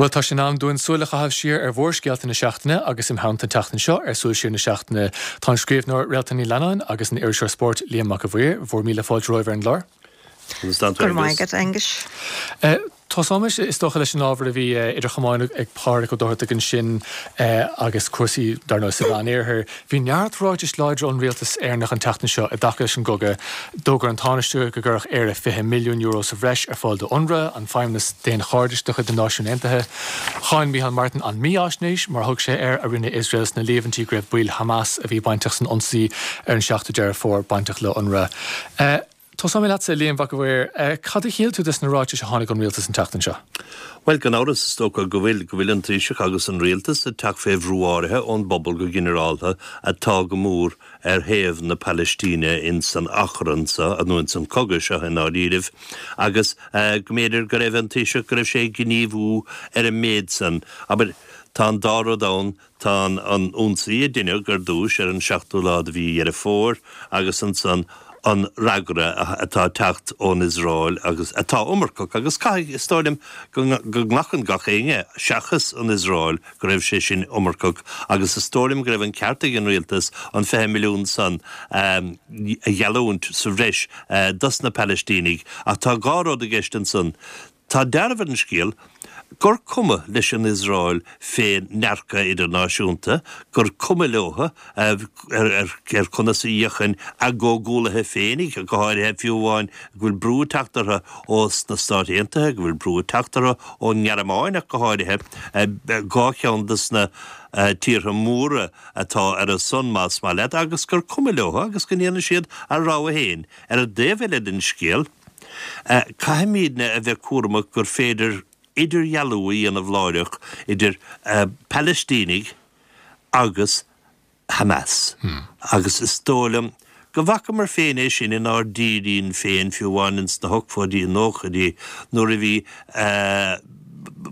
Bhuel, tá sé in am dúinn súil a chaitheamh siar ar mhórscéalta na seachtaine agus im theannta an tseachtain seo ar Súil Siar na Seachtaine tá an scríbhneoir Réaltán Ní Leannáin agus an iriseoir spóirt Liam Mac a' Mhaoir. Bhur míle fáilte romhaibh ar an gclár. Go raibh maith agat, Aengus. Tosóimis, is dócha, leis an ábhar a bhí idir chamáin ag Pádraic Ó Dochartaigh ansin agus cúrsaí, dar ndóigh, sa Mheánoirthear. Bhí neart ráitis láidre ón rialtas Éireannach an tseachtain seo i dtaca leis an gcogadh. D'fhógair an Tánaiste go gcuirfeadh Éire €20 milliún sa bhreis ar fáil do Unrwa, an feidhmeannas daonchairdis de chuid na Náisiún Aontaithe. Cháin Micheál Martin an mífhaisnéis, mar a thug sé air, a rinne Iosrael sna líomhaintí go raibh baill Hamas a bhí bainteach san ionsaí ar an 7ú Deireadh Fómhair bainteach le Unrwa. Tosóidh mé leatsa, a Liam Mhac a' Mhaoir. Cad a shíl tú des na ráitis a tháinig ón rialtas an tseachtain seo? Bhuel, gan amhras, is dócha go bhfuil, go bhfuil an Taoiseach agus an Rialtas ag teacht fé bhrú áirithe ón bpobal go ginearálta atá go mór ar thaobh na Palaistíne ins an achrann seo, nó ins an cogadh seo i ndáiríribh, agus go mb'fhéidir go raibh an Taoiseach, go raibh sé ag gníomhú ar an méid san. Abair, tá an dá rud ann, Tá an ionsaí a deineadh ar dtúis ar an seachtú lá de mhí Dheireadh Fómhair agus ansan an fhreagra atá ag teacht ón Iosrael agus atá iomarcach agus caithfidh, is dóigh liom, go nglacann gach éinne, seachas an Iosrael, go raibh sé sin iomarcach agus is dóigh liom go raibh an ceart ag an rialtas an 20 milliún san a gheallúint sa bhreis dos na Palaistínigh ach tá dhá rud i gceist ansan. Tá dealramh ar an scéal gur cuma leis an Iosrael fén ndearcadh idirnáisiúnta, gur cuma leo ar conas a fhéachann a gcomhghuallaithe féinig, go háirithe, fiú amháin go bhfuil brú ag teacht orthu ós na Stáit Aontaithe, go bhfuil brú ag teacht orthu ón nGearmáin ach go háirithe, dhá cheann dos na tíortha móra atá ar a son, más maith leat, agus gur cuma leo agus go ndéanann siad a rogha féin. Ar an dtaobh eile den scéal, Caithfimídne a bheith cúramach gur féidir idirdhealú a dhéanamh láithreach idir Palaistínigh agus Hamas agus is dóigh liom go bhfacamar féin é sin inár dtírín féin fiú amháin ins na hochtóidí, nóchaidí nuair a bhí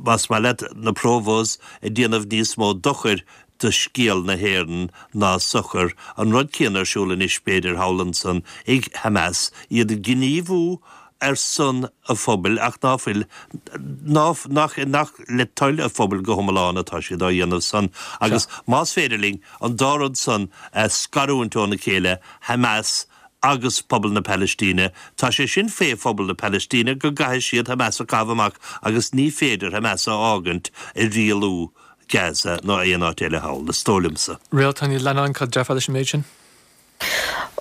más maith leat na Provos ag déanamh níos mó dochair do scéal na hÉireann ná sochar. An rud céanna ar siúl anois, b'fhéidir, thall ansan ag Hamas, iad ag gníomhú ar son a phobail ach ná fuil, ná, nach, nach le toil a phobail go hiomlán atá siad á dhéanamh san. Agus más féidir linn an dá rud san a scarúint óna chéile, Hamas agus pobal na Palaistíne, tá sé sin fé phobal na Palaistíne go gcaithfidh siad Hamas a chaitheamh amach agus ní féidir Hamas a fhágaint ag rialú Gaza ná aon áit eile thall, is dóigh liomsa. Réaltán Ní Leannáin, cad déarfá leis an méid sin?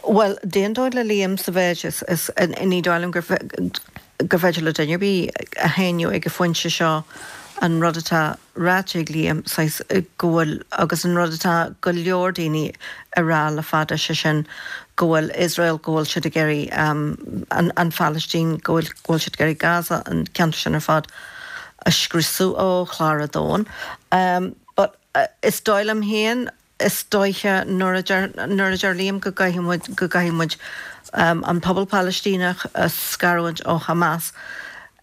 Bhuel, d'aontóinn le Liam sa mhéid is, is, ní dóigh liom gur, gur féidir le duine ar bith a shéanadh ag an phointe seo an rud atá ráite ag Liam, saghas, go bhfuil, agus an rud atá go leor daoine a rá le fada, sé sin go bhfuil Iosrael, go bhfuil siad ag iarraidh an, an Phalaistín, go bhfuil, go bhfuil siad ag iarraidh Gaza, an ceantar sin ar fad, a scriosadh ó chlár an domhain. But is dóigh liom féin, is dóiche nuair a deir, nuair a deir Liam go gcaithfidh muid, go gcaithfidh muid an pobal Palaistíneach a scarúint ó Hamas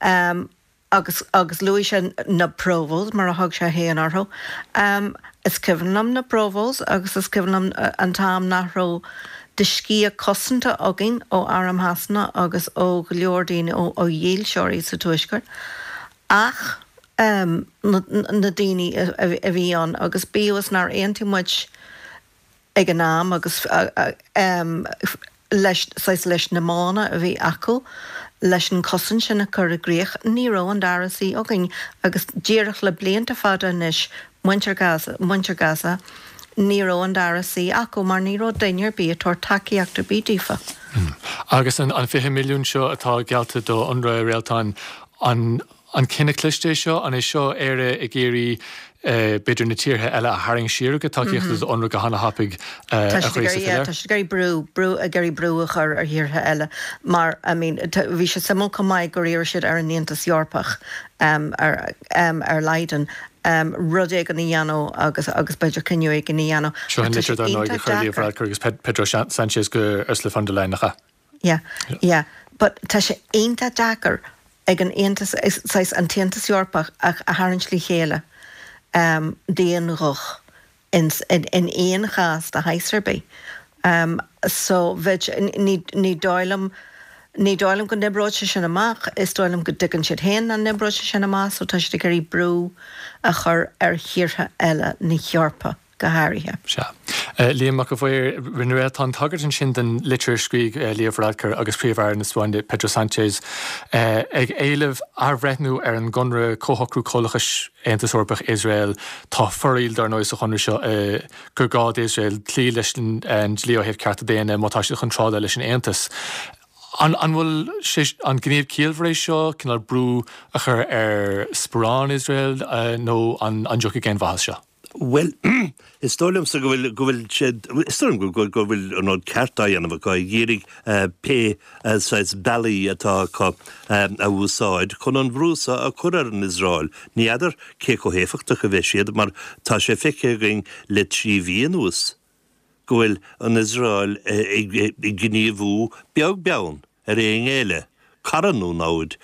agus, agus luaigh sé na Provos mar a thug sé féin orthu. Is cuimhin liom na Provos agus is cuimhin liom an t-am nach raibh de sciath cosanta againn ó Arm Shasana agus ó go leor daoine, ó dhílseoirí sa Tuaisceart, ach na daoine a bhí ann agus bíodh is nár aontaigh muid ag an am agus leis, saghas, leis na modhanna a bhí acu leis an chosaint sin a chur i gcrích, ní raibh an dara suí againn agus díreach le blianta fada anois muintir Gaza, muintir Gaza, ní raibh an dara suí acu mar ní raibh duine ar bith ag tabhairt tacaíocht ar bith daofa. Agus an 20 milliún seo atá geallta do Unrwa, a Réaltán, an an cinneadh cliste é seo? An é seo Éire ag iarraidh b'fhéidir na tíortha eile a tharraingt siar ó gcuid tacaíochta do Unrwa go hana-thapaidh a Chraosaigh? Tá siad ag iarraidh brú, brú, ag iarraidh brú a chur ar thíortha eile mar, I mean, bhí sé suimiúil chomh maith gur iarr siad ar an Aontas Eorpach, ar, ar Leiden, rud éigin a dhéanamh agus agus b'fhéidir cinneadh éigin a dhéanamh. Seo an litir dar ndóigh a chuir Leo Varadkar agus Pedro Sanchez go Ursula von der Leyen, nach ea? Yeah, yeah. But tá sé iontach deacair ag an Aontas, saghas an tAontas Eorpach a tharraingt le chéile d'aon ghuth in in aon chás de shaghas ar bith. So bheadh, ní ní dóigh liom. Ní dóigh liom go n-oibreoidh sé sin amach, is dóigh liom go dtuigeann siad féin nach n-oibreoidh sé sin amach so tá siad ag iarraidh brú a chur ar thíortha eile na hEorpa go háirithe. Sea. Liam Mac a' Mhaoir, rinne Réaltán tagairt ansin don litir a scrígh Leo Varadkar agus Príomh-Aire na Spáinne Pedro Sánchez ag éileamh athbhreithniú ar an gconradh Comhshocrú Comhlachais Aontas Eorpach Iosrael. Tá foraíl dar ndóigh sa chonradh seo gur gá d'Iosrael cloí leis an dlí ó thaobh cearta daonna má tá siad chun trádáil leis an Aontas. An bhfuil sé, an gníomh ciallmhar é seo, cineál brú a chur ar sparán Iosrael nó an dtiocfaidh aon mhaith as seo? Bhuel, is dóigh liomsa go bhfuil, go bhfuil sé, is dóigh liom go, go bhfuil an rud ceart á dhéanamh acu, ag iarraidh pé saghas bealaí atá acu a úsáid chun an bhrú seo a chur ar an Iosrael. Ní fheadar cé chomh héifeachtach a bheidh siad mar tá sé feicthe againn le 3 mhí anuas go bhfuil an Iosrael ag gníomhú beag beann ar aon ghéilleadh, cara nó namhaid.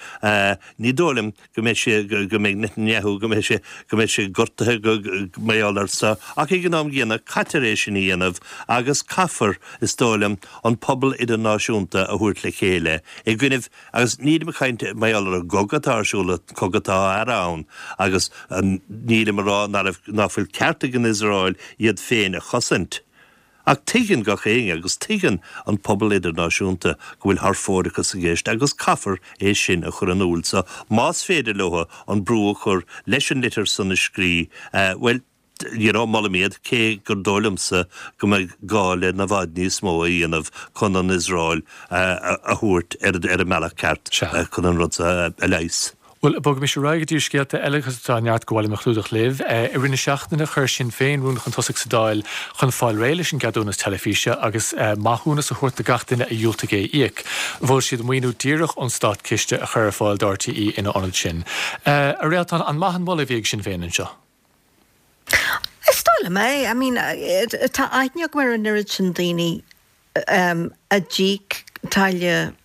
Ní dóigh liom go mbeidh sé, go mbeidh Netanyahu, go mbeidh sé, go mbeidh sé gortaithe go, mar gheall air seo, ach ag an am gcéanna caitear é sin a dhéanamh agus caithfear, is dóigh liom, an pobal idirnáisiúnta a thabhairt le chéile i gcoinnibh, agus nílim ag caint mar gheall ar an gcogadh atá ar siúl, an cogadh atá á fhearadh ann, agus nílim ag rá ná fuil ceart ag an Iosrael iad féin a chosaint. Ach tuigeann gach éinne, agus tuigeann an pobal idirnáisiúnta, go bhfuil thar fóireachas i gceist agus caithfear é sin a chur in iúl. So, más féidir leo an brú a chur leis an litir san a scrí, bhuel, you know, molaim iad, cé gur dóigh liomsa go mbeidh gá le i bhfad níos mó a dhéanamh chun an Iosrael a thabhairt ar an mbealach ceart chun an rud seo a leigheas. Bhuel, bogaimis ar aghaidh go dtí scéalta eile agus tá neart go bhfuilim a chlúdach libh. I rith na seachtaine chuir Sinn Féin rún chun tosaigh sa Dáil chun fáil réidh leis an gceadúnas teilifíse agus maithiúnas a thabhairt do gach duine a dhiúltaigh é a íoc. Mhol siad maoiniú díreach ón státchiste a chur ar fáil do RTÉ ina ionad sin. A Réaltán, an maith an moladh a bhí ag Sinn Féin anseo? Is dóigh liom é. I mean, tá aithne agam ar an oiread sin daoine a d'íoc táille,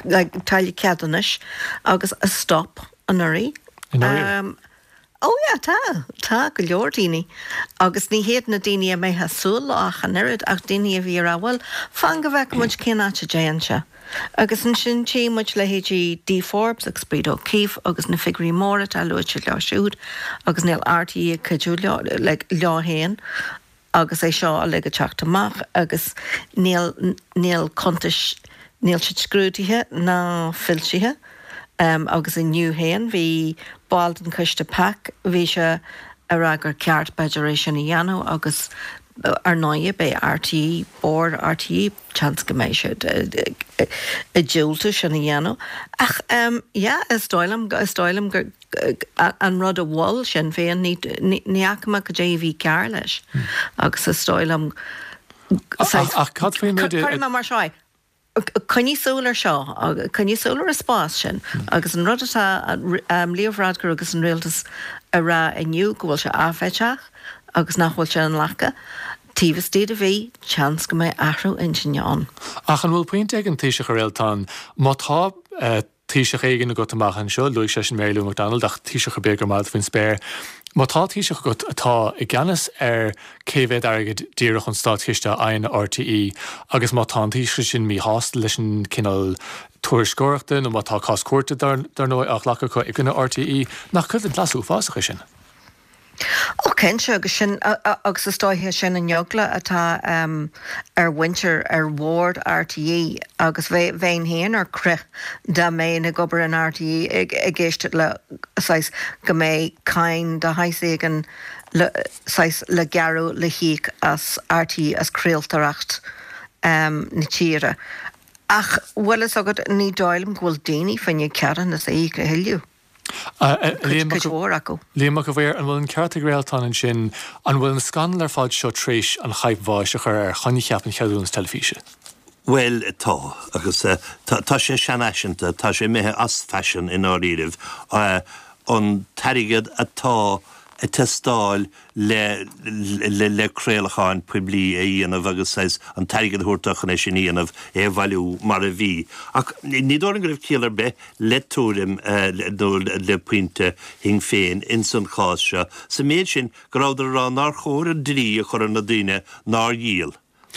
like, táille ceadúnais agus a stop anuraidh. Anuraidh? Oh yeah, tá, tá go leor daoine. Agus ní hiad na daoine a mbeifeá ag súil leo ach an oiread, ach daoine a bhí ag rá, bhuel, fan go bhfeicfidh muid cén áit a dtéann sé. Agus ansin tchí muid leithéidí Dee Forbes agus Breda O'Keeffe agus na figiúirí móra atá luaite leo siúd agus níl RTÉ ag cuidiú leo, like, leo féin. agus é seo uilig ag teacht amach agus níl, níl cuntais, níl siad scrúdaithe ná foilsithe agus inniu féin bhí ball den choiste PAC, bhí sé ag rá gur ceart b'fhéidir é sin a dhéanamh agus ar ndóighe beidh RTÉ, Bord RTÉ, seans go mbeidh siad ag diúltú sin a dhéanamh ach yeah is dóigh liom, is dóigh liom gur. an rud a mhol Sinn Féin, ní fhaca mé cad é a bhí cearr leis agus is dóigh liom, Ach cad faoin méid a. Cuirfidh mé mar seo é, coinnigh súil ar seo, coinnigh súil ar an spás sin agus an rud atá Leo Varadkar agus an rialtas a rá inniu go bhfuil sé áiféiseach agus nach bhfuil sé inghlactha, taobh istigh de mhí, seans go mbeidh athrú intinne ann. Ach an bhfuil pointe ag an Taoiseach a Réaltán, má tá Taoiseach éigin agat amach anseo, luaigh seisean Mary Lou McDonald, ach Taoiseach ar bith gur maith leat faoin spéir. Má tá Taoiseach agat atá i gceannas ar cé mhéad airgead díreach ón státchiste a fhaigheann RTÉ agus má tá an Taoiseach sin míshásta leis an cineál tuairisceoireachta nó má tá cás cúirte dar ndóigh á ghlacadh acu i gcoinne RTÉ, nach coimhlint ghlas uafásach é sin? Ó cinnte, agus sin, agus is dóiche sin an eagla atá ar mhuintir, ar bhord RTÉ agus bheinn féin ar crith dá mbeinn ag obair in RTÉ ag éisteacht le saghas go mbeidh cáin de shaghas éigin le saghas le gearradh le híoc as RTÉ as craoltóireacht na tíre. Ach bhfuil fhios agat ní dóigh liom go bhfuil daoine fá choinne ceadúnas a íoc a thuilleadh. Cuid mhór acu. Liam Mac a' Mhaoir, an bhfuil an ceart ag Réaltán ansin? An bhfuil an scannal ar fad seo tar éis an chaidhp bháis a chur ar choincheap an cheadúnas teilifíse? Bhuel, tá. Agus tá sé seanfhaiseanta, tá sé imithe as faisean i ndáiríribh. An t-airgead atá ag teastáil le le craolacháin poiblí a dhéanamh agus saghas an t-airgead a thabhairt dó chun é sin a dhéanamh, é a bhailiú mar a bhí. Ach ní dóigh liom go raibh ciall ar bith le tuairim nó le pointe Shinn Féin ins an chás seo, sa méid sin go rabhadar ag rá nár chóir an dlí a chur ar na daoine nár dhíol.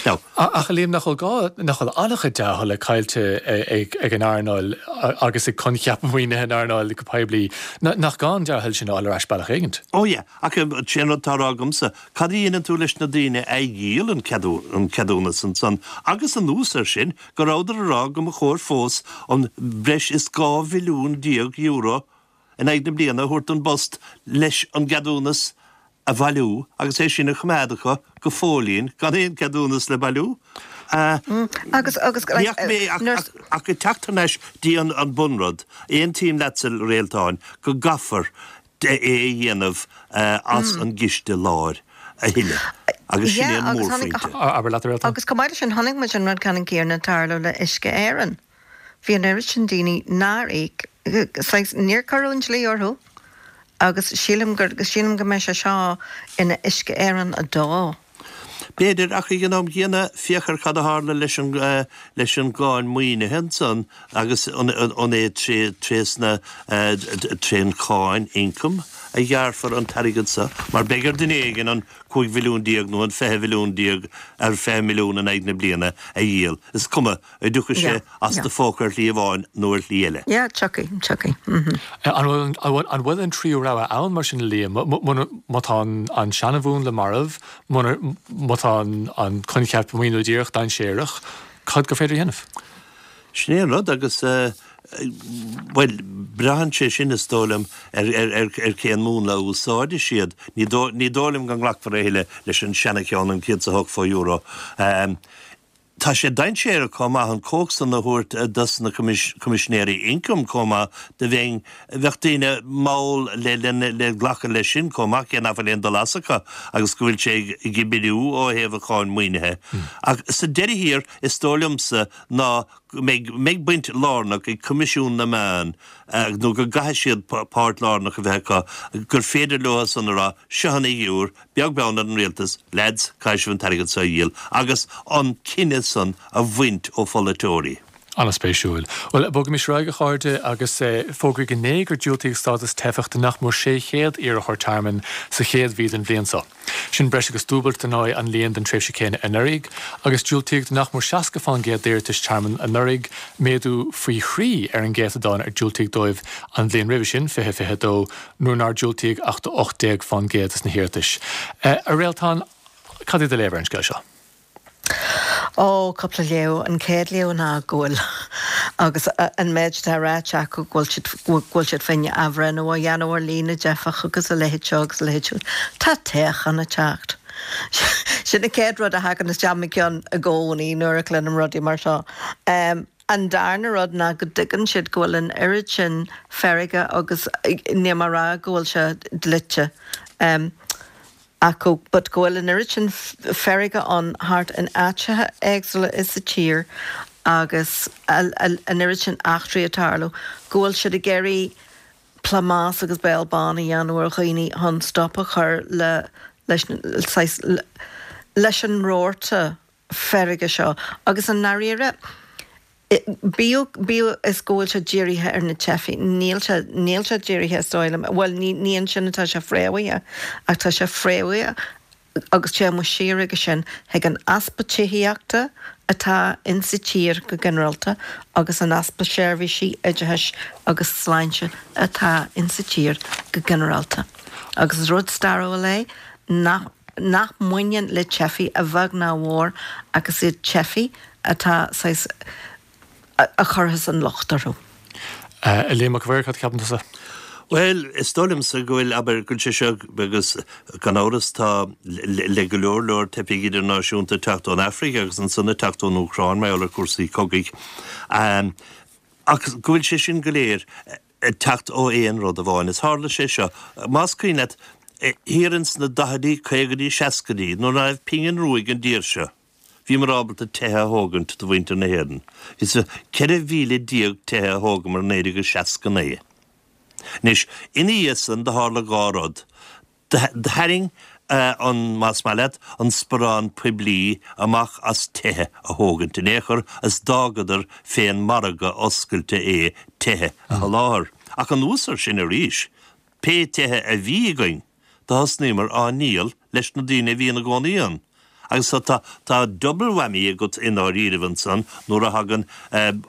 Now. Ach a Liam, nach bhfuil gá, nach bhfuil an-chuid dea-thola caillte ag an earnáil agus ag coincheap maoinithe an earnáil go poiblí, nach gá an dea-thoil sin a fháil ar ais bealach éigint? Ó yeah, ach sé an rud atá á rá agamsa, cad a dhéanann tú leis na daoine a dhíol an ceadúnas ansan agus anuas air sin, go rabhadar a rá go mba chóir fós an breis is €12 mhilliún in aghaidh na bliana a thabhairt don bPost leis an gceadúnas a bhailiú agus é sin a choimeád acu go fóillín gan aon cheadúnas le bailiú. Agus, agus, Ní fhaca mé ach, ach ag teacht thar n-ais dtí an bunrud, aontaím leatsa, a Réaltáin, go gcaithfear é a dhéanamh as an gciste láir a thuilleadh agus sin é an mórphointe. Abair leat, a Réaltáin. Agus chomh maith leis sin, chonaic muid an rud ceannann céanna ag tarlú le Uisce Éireann. Bhí an oiread sin daoine nár íoc, saghas, níor cuireadh an dlí orthu agus sílim gur, sílim go mbeidh sé seo ina Uisce Éireann 2. B'fhéidir, ach ag an am gcéanna, féach ar cad a tharla leis an, leis an gcáin maoinithe ansan agus an, an é tré, trésna, trén cháin ioncaim a ghearrfar an t-airgead so, mar beidh ar duine éigin an 15 mhilliún nó an 20 mhilliún ar 20 milliún in aghaidh na bliana a dhíol, is cuma An dtiocfaidh sé as do phóca ar shlí amháin nó ar shlí eile. Yeah, tiocfaidh, tiocfaidh. Mm-hmm. An bhfuil, an bhfuil an tríú rogha ann mar sin, a Liam? Má tá an seanamhúnla marbh, má tá an coincheap maoiniú díreach dainséarach, cad gur féidir a dhéanamh? Sin é an rud agus, bhuel, braitheann sé sin, is dóigh liom, ar cén múnla a úsáidfidh siad. Ní dóigh liom go nglacfar a thuilleadh leis an seana-cheann, an €108 fo-euro. Tá sé dainséarach chomh maith an chumhacht san a thabhairt dos na Coimisinéirí Ioncaim chomh maith do bheinn, bheadh daoine mall le le glacadh leis sin chomh maith cé nach bhfuil aon dul as acu agus go bhfuil sé ag oibriú ó thaobh an cháin maoinithe. Ach sa deireadh thiar is dóigh liomsa ná go mbeidh mbeidh baint lárnach ag Coimisiún na Meán nó go gcaithfidh siad páirt lárnach a bheith acu gur féidir leo san a rá seo an fhigiúr Beag beann ar an rialtas, leaids, caithfidh sibh an t-airgead seo a dhíol agus an cinneadh san a bhaint ó pholaiteoirí. An-spéisiúil. Bhuel, bogaimis ar aghaidh, a chairde, agus fógraíodh inné gur diúltaíodh stádas teifeach do nach mór 600 iarrthóir tearmainn sa chéad mhí den bhliain seo. Sin breis agus dúbailt, dar ndóigh, an líon den tréimhse chéanna anuraidh, agus diúltaíodh do nach mór 60% d'iarratais tearmainn anuraidh, méadú faoi thrí ar an gcéatadán ar diúltaíodh dóibh an bhliain roimhe sin, 2022. nuair nár diúltaíodh ach do 18% des na hiarratais. A Réaltán, cad é do léamh ar an scéal seo? Ó, cúpla léamh. An chéad léamh ná go bhfuil, agus an méid atá ráite acu, go bhfuil siad, go bhfuil siad féin athbhreithniú a dhéanamh ar líon na dteifeach agus a leithéid seo agus a leithéid siúd. Tá toghchán ag teacht. Sin an chéad rud a thagann isteach i mo cheann i gcónaí nuair a chluinim rudaí mar seo. An darna rud ná go dtuigeann siad go bhfuil an oiread sin feirge agus níl mé a rá go bhfuil sé dlite acu but go bhfuil an oiread sin feirge ann thart in áiteacha éagsúla sa tír agus an oiread sin eachtraí ag tarlú go bhfuil siad ag iarraidh plámás agus béal bán a dhéanamh ar dhaoine chun stop a chur le leis saghas leis an rabharta feirge seo agus i ndáiríre, bíodh, bíodh is go bhfuil sé dírithe ar na teifigh, níl sé, níl sé dírithe is dóigh liom, bhuel ní, ní ansin atá sé fréamhaithe ach tá sé fréamhaithe agus téann muid siar aige sin chuig an easpa tithíochta atá insa tír go ginearálta agus an easpa seirbhísí oideachais agus sláinte atá insa tír go ginearálta. Agus is rud stairiúil é nach. nach mbaineann le teifigh a bheag ná a mhór ach is iad teifigh atá saghas a chuirfeas an locht orthu. A Liam Mac an Mhaoir, cad a cheapann tusa? Bhuel, is dóigh liomsa go bhfuil, abair, go bhfuil sé seo, agus gan amhras tá le go leor leor teifigh idirnáisiúnta ag teacht ón Afraic agus ansan ag teacht ón Úcráin mar gheall ar chúrsaí cogaidh, ach go bhfuil sé sin go léir ag teacht ó aon rud amháin. Is tharla sé seo, más cuimhin leat, thiar ins na daichidí, caogaidí, seascaidí, nuair ná raibh pingin rua ag an dtír seo, bhíomar ábalta tithe a thógaint do mhuintir na hÉireann. Is 14,000 tithe a thógamar in 1969. Anois, ina dhiaidh san, do tharla dhá rud. Tharraing an, más maith leat, an sparán poiblí amach as tithe a thógaint in aon chor is d'fhágadar fén margadh oscailte é tithe a sholáthar. Ach anuas ar sin arís, pé tithe a bhí againn, do thosnaíomar á ndíol leis na daoine a bhí ina gcónaí ann. Agus so tá, tá double whammy agat i ndáiríribh ansan nuair a thagann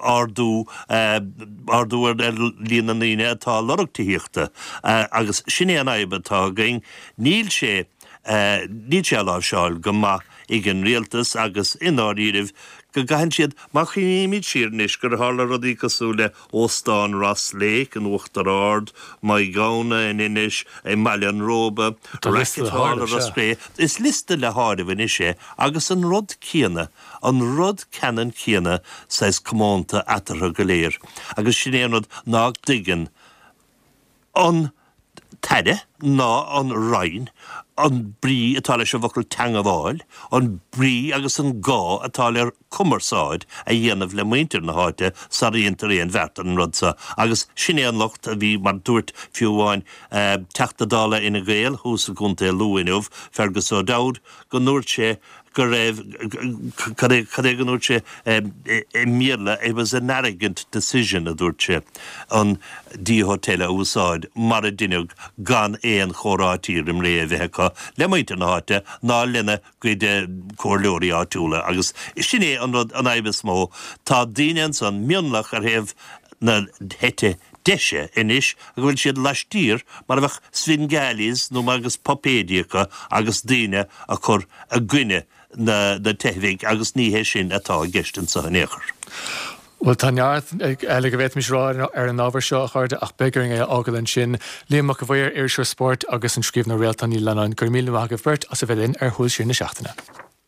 ardú, ardú ar líon na ndaoine atá ag lorg tithíochta. Agus sin é an fhadhb atá againn, níl sé, níl sé á láimhseáil go maith ag an rialtas agus i ndáiríribh go gcaitheann siad, má chuimhnímid siar anois gur tharla rudaí cosúil le Óstán Ross Lake in Uachtar Ard, Maigh Ghamhna in Inis, i mBaile an Róba, Racket Hall i Ros Cré. Is liosta le háireamh anois é agus an rud céanna, an rud ceannann céanna saghas comónta eatarthu go léir agus sin é an rud ná dtuigeann an tAire ná an Roinn an brí atá leis an bhfocal teangabháil, an brí agus an gá atá le cumarsáid a dhéanamh le muintir na háite sara dhéantar aon bheart ar an rud seo. Agus sin é an locht a bhí, mar dúirt fiú amháin Teachta Dála Fhine Gael thuas i gContae Lú inniu, Fergus O'Dowd, go ndúirt sé go raibh, cad é, cad é go ndúirt sé i mBéarla, it was an arrogant decision a dúirt sé, an D Hotel a úsáid mar a deineadh gan aon chomhráití roim ré a bheith acu le muintir na háite ná lena gcuid comhairleoirí áitiúla agus sin é an rud, an fhadhb is mó. Tá daoine ansan, mionlach ar thaobh na heite deise anois go bhfuil siad laistiar mar a bheadh Svengalis nó mar agus puipéidí acu agus daoine a chur i gcoinne na teifigh agus ní hé sin atá i gceist anseo in aon chor. Bhuel, tá neart eile go bhféadfaimis a rá ar an ábhar seo, a chairde, ach beidh orainn é a fhágáil ansin. Liam Mac a' Mhaoir, iriseoir spóirt, agus an scríbhneoir Réaltán Ní Leannáin, go raibh míle maith agaibh beirt as a bheith linn ar Shúil Siar na Seachtaine.